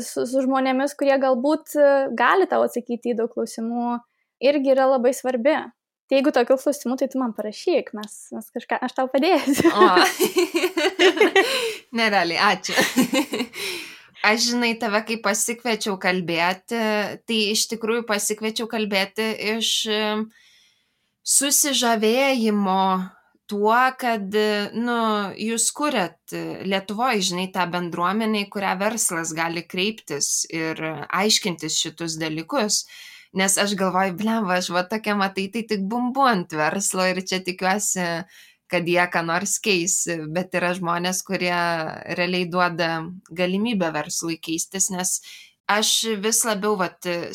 su žmonėmis, kurie galbūt gali tau atsakyti į daug klausimų, irgi yra labai svarbi. Tai jeigu tokių klausimų, tai tu man parašyk, mes kažką, aš tau padėsiu. Nerealiai, ačiū. Aš, žinai, tave kai pasikviečiau kalbėti, tai iš tikrųjų pasikviečiau kalbėti iš susižavėjimo tuo, kad, jūs kuriat Lietuvoje, žinai, tą bendruomenę, į kurią verslas gali kreiptis ir aiškintis šitus dalykus. Nes aš galvoju, blemba, aš tokia matai, tai tik bumbu ant verslo ir čia tikiuosi, kad jie ką nors keis, bet yra žmonės, kurie realiai duoda galimybę verslui keistis, nes aš vis labiau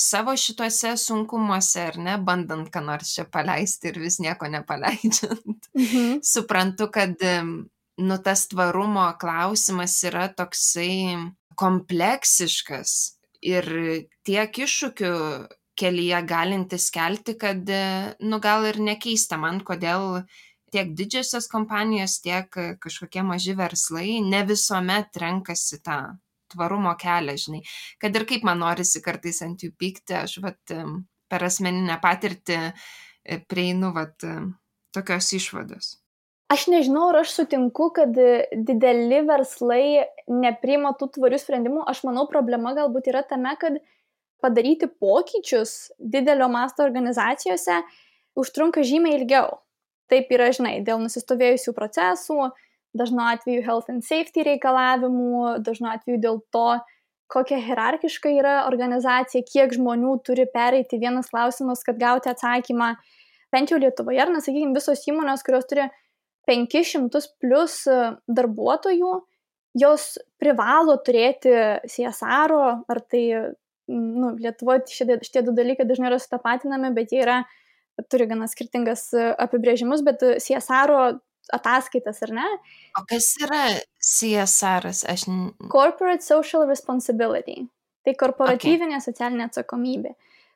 savo šituose sunkumuose, ar ne, bandant ką nors čia paleisti ir vis nieko nepaleidžiant, suprantu, kad tas tvarumo klausimas yra toksai kompleksiškas ir tiek iššūkių kelyje galintis kelti, kad, gal ir nekeista man, kodėl tiek didžiosios kompanijos, tiek kažkokie maži verslai ne visuomet renkasi tą tvarumo kelią, žinai. Kad ir kaip man norisi kartais ant jų pykti, aš per asmeninę patirtį prieinu tokios išvados. Aš nežinau, ar aš sutinku, kad dideli verslai nepriima tų tvarių sprendimų. Aš manau, problema galbūt yra tame, kad padaryti pokyčius didelio masto organizacijose užtrunka žymiai ilgiau. Taip yra, žinai, dėl nusistovėjusių procesų, dažnu atveju health and safety reikalavimų, dažnu atveju dėl to, kokia hierarchiška yra organizacija, kiek žmonių turi pereiti vienas klausimas, kad gauti atsakymą. Bent jau Lietuvoje, ar nesakykime, visos įmonės, kurios turi 500 plus darbuotojų, jos privalo turėti CSR, ar tai Lietuvoje šitie du dalykai dažnai yra sutapatinami, bet jie turi gana skirtingas apibrėžimus, bet CSR ataskaitas, ar ne? O kas yra CSR? Corporate Social Responsibility. Tai korporatyvinė socialinė atsakomybė.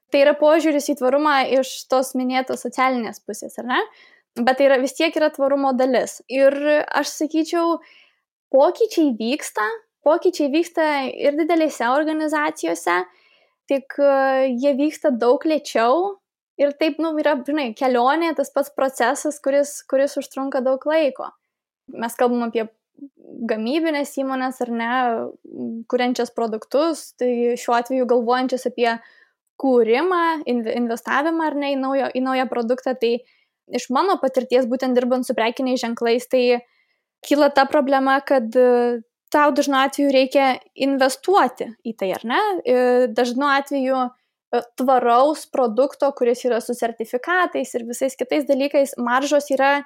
Tai yra požiūris į tvarumą iš tos minėtos socialinės pusės, ar ne? Bet tai vis tiek yra tvarumo dalis. Ir aš sakyčiau, pokyčiai vyksta ir didelėse organizacijose, tik jie vyksta daug lėčiau ir taip, yra, žinai, kelionė, tas pats procesas, kuris užtrunka daug laiko. Mes kalbam apie gamybinės įmonės, ar ne, kuriančias produktus, tai šiuo atveju galvojančias apie kūrimą, investavimą, ar ne, į naują produktą, tai iš mano patirties, būtent dirbant su prekiniais ženklais, tai kyla ta problema, kad tau dažnu atveju reikia investuoti į tai, ar ne? Dažnu atveju tvaraus produkto, kuris yra su sertifikatais ir visais kitais dalykais, maržos yra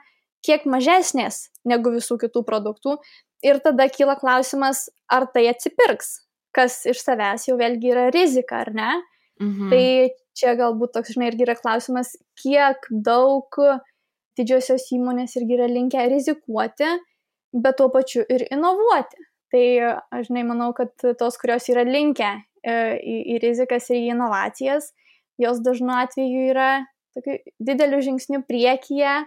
kiek mažesnės negu visų kitų produktų. Ir tada kyla klausimas, ar tai atsipirks, kas iš savęs jau vėlgi yra rizika, ar ne? Tai čia galbūt toks, žinai, irgi yra klausimas, kiek daug didžiosios įmonės irgi yra linkę rizikuoti, bet tuo pačiu ir inovuoti. Tai aš, žinai, manau, kad tos, kurios yra linkę į rizikas ir į inovacijas, jos dažnu atveju yra tokiu dideliu žingsniu priekyje,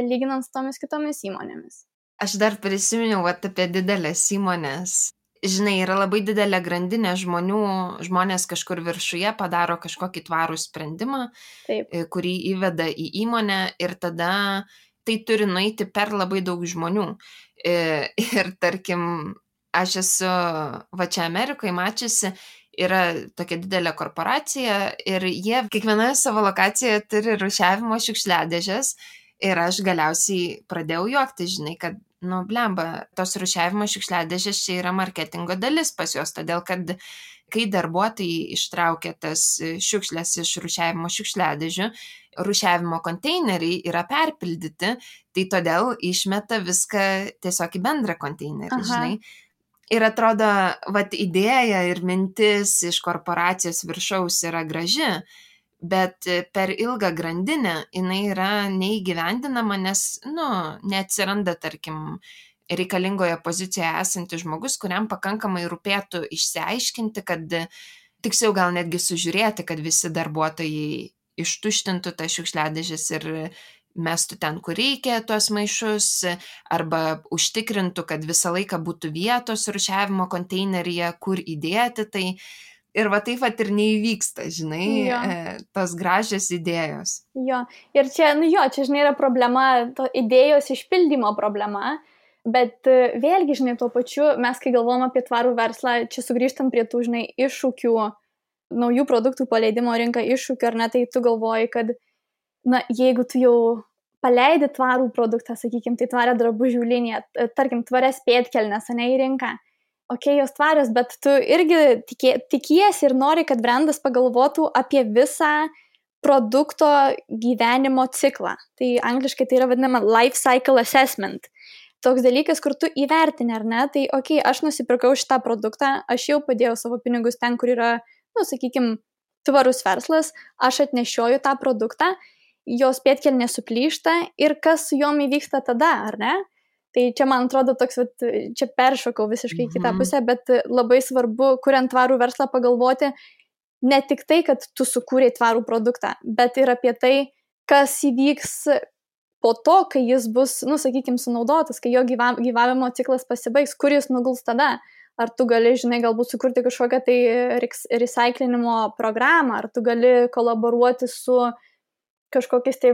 lyginant su tomis kitomis įmonėmis. Aš dar prisiminiau apie didelės įmonės. Žinai, yra labai didelė grandinė žmonių, žmonės kažkur viršuje padaro kažkokį tvarų sprendimą, Taip. Kurį įveda į įmonę ir tada tai turi nueiti per labai daug žmonių. Ir tarkim, aš esu va čia Amerikoje mačiusi, yra tokia didelė korporacija ir jie kiekvienoje savo lokacijoje turi rūšiavimo šiukšliadėžes ir aš galiausiai pradėjau juokti, žinai, kad blemba, tos rūšiavimo šiukšliadėžės čia yra marketingo dalis pas juos, todėl kad kai darbuotojai ištraukia tas šiukšlės iš rūšiavimo šiukšliadėžių, rūšiavimo konteineriai yra perpildyti, tai todėl išmeta viską tiesiog į bendrą konteinerį, žinai. Ir atrodo, idėja ir mintis iš korporacijos viršaus yra graži, bet per ilgą grandinę jinai yra neįgyvendinama, nes, neatsiranda, tarkim, reikalingoje pozicijoje esantis žmogus, kuriam pakankamai rūpėtų išsiaiškinti, kad tiksliau gal netgi sužiūrėti, kad visi darbuotojai ištuštintų tas šiukšliadėžes ir mestų ten, kur reikia tuos maišus, arba užtikrintų, kad visą laiką būtų vietos rūšiavimo konteineryje, kur įdėti tai. Ir taip ir neįvyksta, žinai, tos gražios idėjos. Jo, ir čia, čia, žinai, yra problema, to idėjos išpildymo problema, bet vėlgi, žinai, tuo pačiu, mes kai galvom apie tvarų verslą, čia sugrįžtam prie tų, žinai, iššūkių, naujų produktų paleidimo rinką iššūkių, ar ne, tai tu galvoji, kad, jeigu tu jau paleidi tvarų produktą, sakykime, tai tvarę drabužių liniją, tarkim, tvarias pėdkelnes, ne, į rinką, jos tvarios, bet tu irgi tikiesi ir nori, kad brandas pagalvotų apie visą produkto gyvenimo ciklą. Tai angliškai tai yra vadinama life cycle assessment. Toks dalykas, kur tu įvertini, ar ne, tai aš nusipirkau šitą produktą, aš jau padėjau savo pinigus ten, kur yra, sakykime, tvarus verslas, aš atnešioju tą produktą, jos pėdkelnė suplyšta ir kas su jom įvyksta tada, ar ne? Tai čia, man atrodo, toks, čia peršokau visiškai kitą pusę, bet labai svarbu, kuriant tvarų verslą, pagalvoti ne tik tai, kad tu sukūrei tvarų produktą, bet ir apie tai, kas įvyks po to, kai jis bus, sakykime, sunaudotas, kai jo gyvavimo ciklas pasibaigs, kur jis nuguls tada. Ar tu gali, žinai, galbūt sukurti kažkokią tai recyclinimo programą, ar tu gali kolaboruoti su kažkokiais tai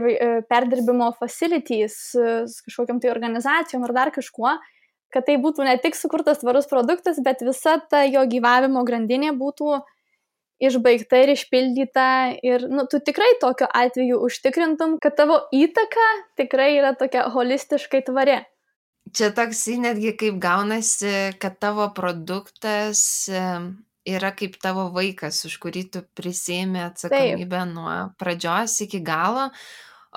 perdirbimo facilities, kažkokiam tai organizacijom ar dar kažkuo, kad tai būtų ne tik sukurtas tvarus produktas, bet visa ta jo gyvavimo grandinė būtų išbaigta ir išpildyta ir, tu tikrai tokiu atveju užtikrintum, kad tavo įtaka tikrai yra tokia holistiškai tvari. Čia toks netgi kaip gaunasi, kad tavo produktas yra kaip tavo vaikas, už kurį tu prisiėmė atsakomybę nuo pradžios iki galo,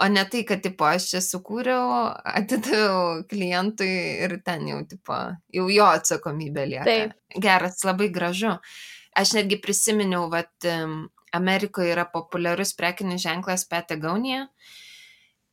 o ne tai, kad aš čia sukūriau, atidaviau klientui ir ten jau jo atsakomybė lieka. Taip. Geras, labai gražu. Aš netgi prisiminiau, Amerikoje yra populiarus prekinis ženklas Patagonia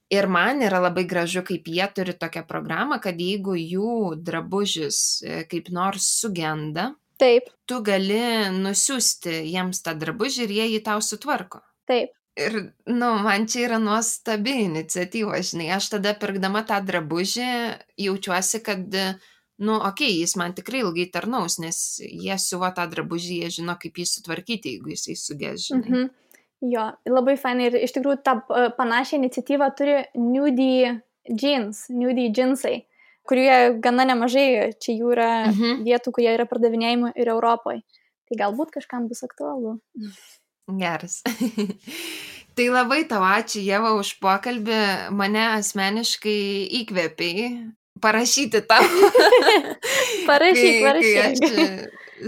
ir man yra labai gražu, kaip jie turi tokią programą, kad jeigu jų drabužis kaip nors sugenda, Taip. tu gali nusiųsti jiems tą drabužį ir jie jį tau sutvarko. Taip. Ir, man čia yra nuostabi iniciatyva, žinai, aš tada pirkdama tą drabužį jaučiuosi, kad, jis man tikrai ilgai tarnaus, nes jie siuvo tą drabužį, jie žino, kaip jį sutvarkyti, jeigu jisai sugės, žinai. Jo, labai fainai ir iš tikrųjų tą panašią iniciatyvą turi Nudie džinsai, kurie gana nemažai, čia jų yra vietų, kurie yra pardavinėjami ir Europoje. Tai galbūt kažkam bus aktualu. Geras. Tai labai tau ačiū, Ieva, už pokalbį. Mane asmeniškai įkvėpei parašyti tau. Parašyk. Kai aš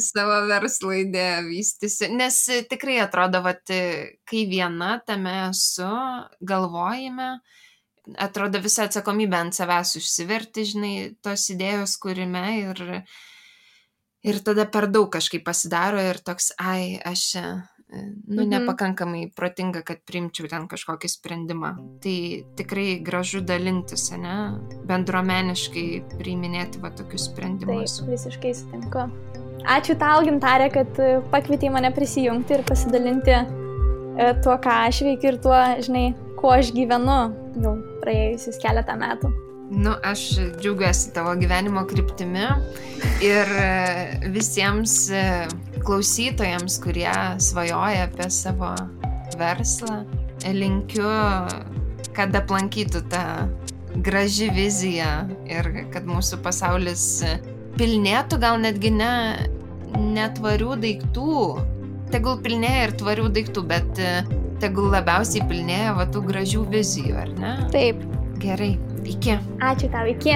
savo verslo idėją vystysiu. Nes tikrai atrodo, kai viena tame esu, galvojime, atrodo visą atsakomybę ant savęs užsiverti, žinai, tos idėjos kūrime ir tada per daug kažkaip pasidaro ir toks, aš nepakankamai protinga, kad priimčiau ten kažkokį sprendimą. Tai tikrai gražu dalintis, ne? Bendruomeniškai priiminėti tokius sprendimus. Taip, visiškai sutinku. Ačiū tau, Gintarė, kad pakvietei mane prisijungti ir pasidalinti tuo, ką aš veikiu ir tuo, žinai, kuo aš gyvenu jau praėjusius keletą metų. Aš džiaugiuosi tavo gyvenimo kryptimi ir visiems klausytojams, kurie svajoja apie savo verslą, linkiu, kad aplankytų tą graži vizija ir kad mūsų pasaulis pilnėtų, gal netgi ne tvarių daiktų. Tegul pilnėja ir tvarių daiktų, bet tegul labiausiai pilnėja tų gražių vizijų, ar ne? Taip. Gerai, iki. Ačiū tau, iki.